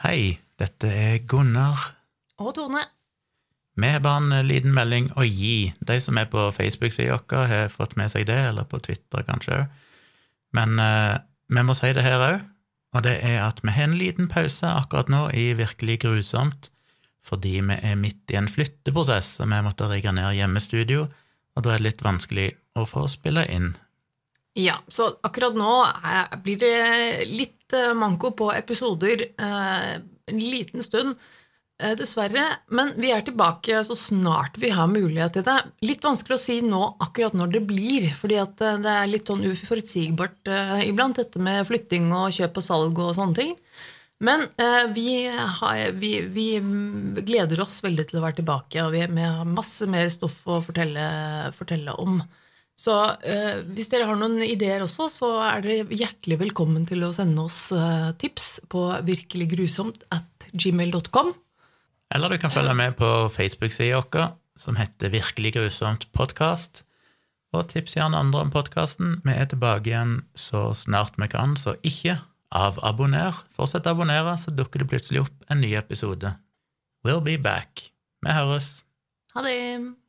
Hei, dette Gunnar. Og Tone. Vi har bare en liten melding å gi. De som på Facebook-siden vår har fått med seg det, eller på Twitter kanskje. Men vi må si det her også, og det at vi har en liten pause akkurat nå i Virkelig grusomt, fordi vi midt i en flytteprosess, og vi måtte rigge ned hjemmestudio, og da det litt vanskelig å få spille inn. Ja, så akkurat nå blir det litt manko på episoder en liten stund, dessverre, men vi tilbake så snart vi har mulighet til det. Litt vanskelig å si nå akkurat når det blir, fordi at det litt sånn uforutsigbart iblant, dette med flytting og kjøp og salg og sånne ting. Men vi gleder oss veldig til å være tilbake, og vi har masse mer stoff å fortelle om. Så hvis dere har noen ideer også, så dere hjertelig velkommen til å sende oss tips på virkeliggrusomt@gmail.com. Eller du kan følge med på Facebook-siden vår, som heter Virkelig grusomt podcast, og tips gjerne andre om podcasten. Vi tilbake igjen så snart vi kan, så ikke avabonner. Fortsett å abonnere, så dukker det plutselig opp en ny episode. We'll be back. Vi høres. Ha det!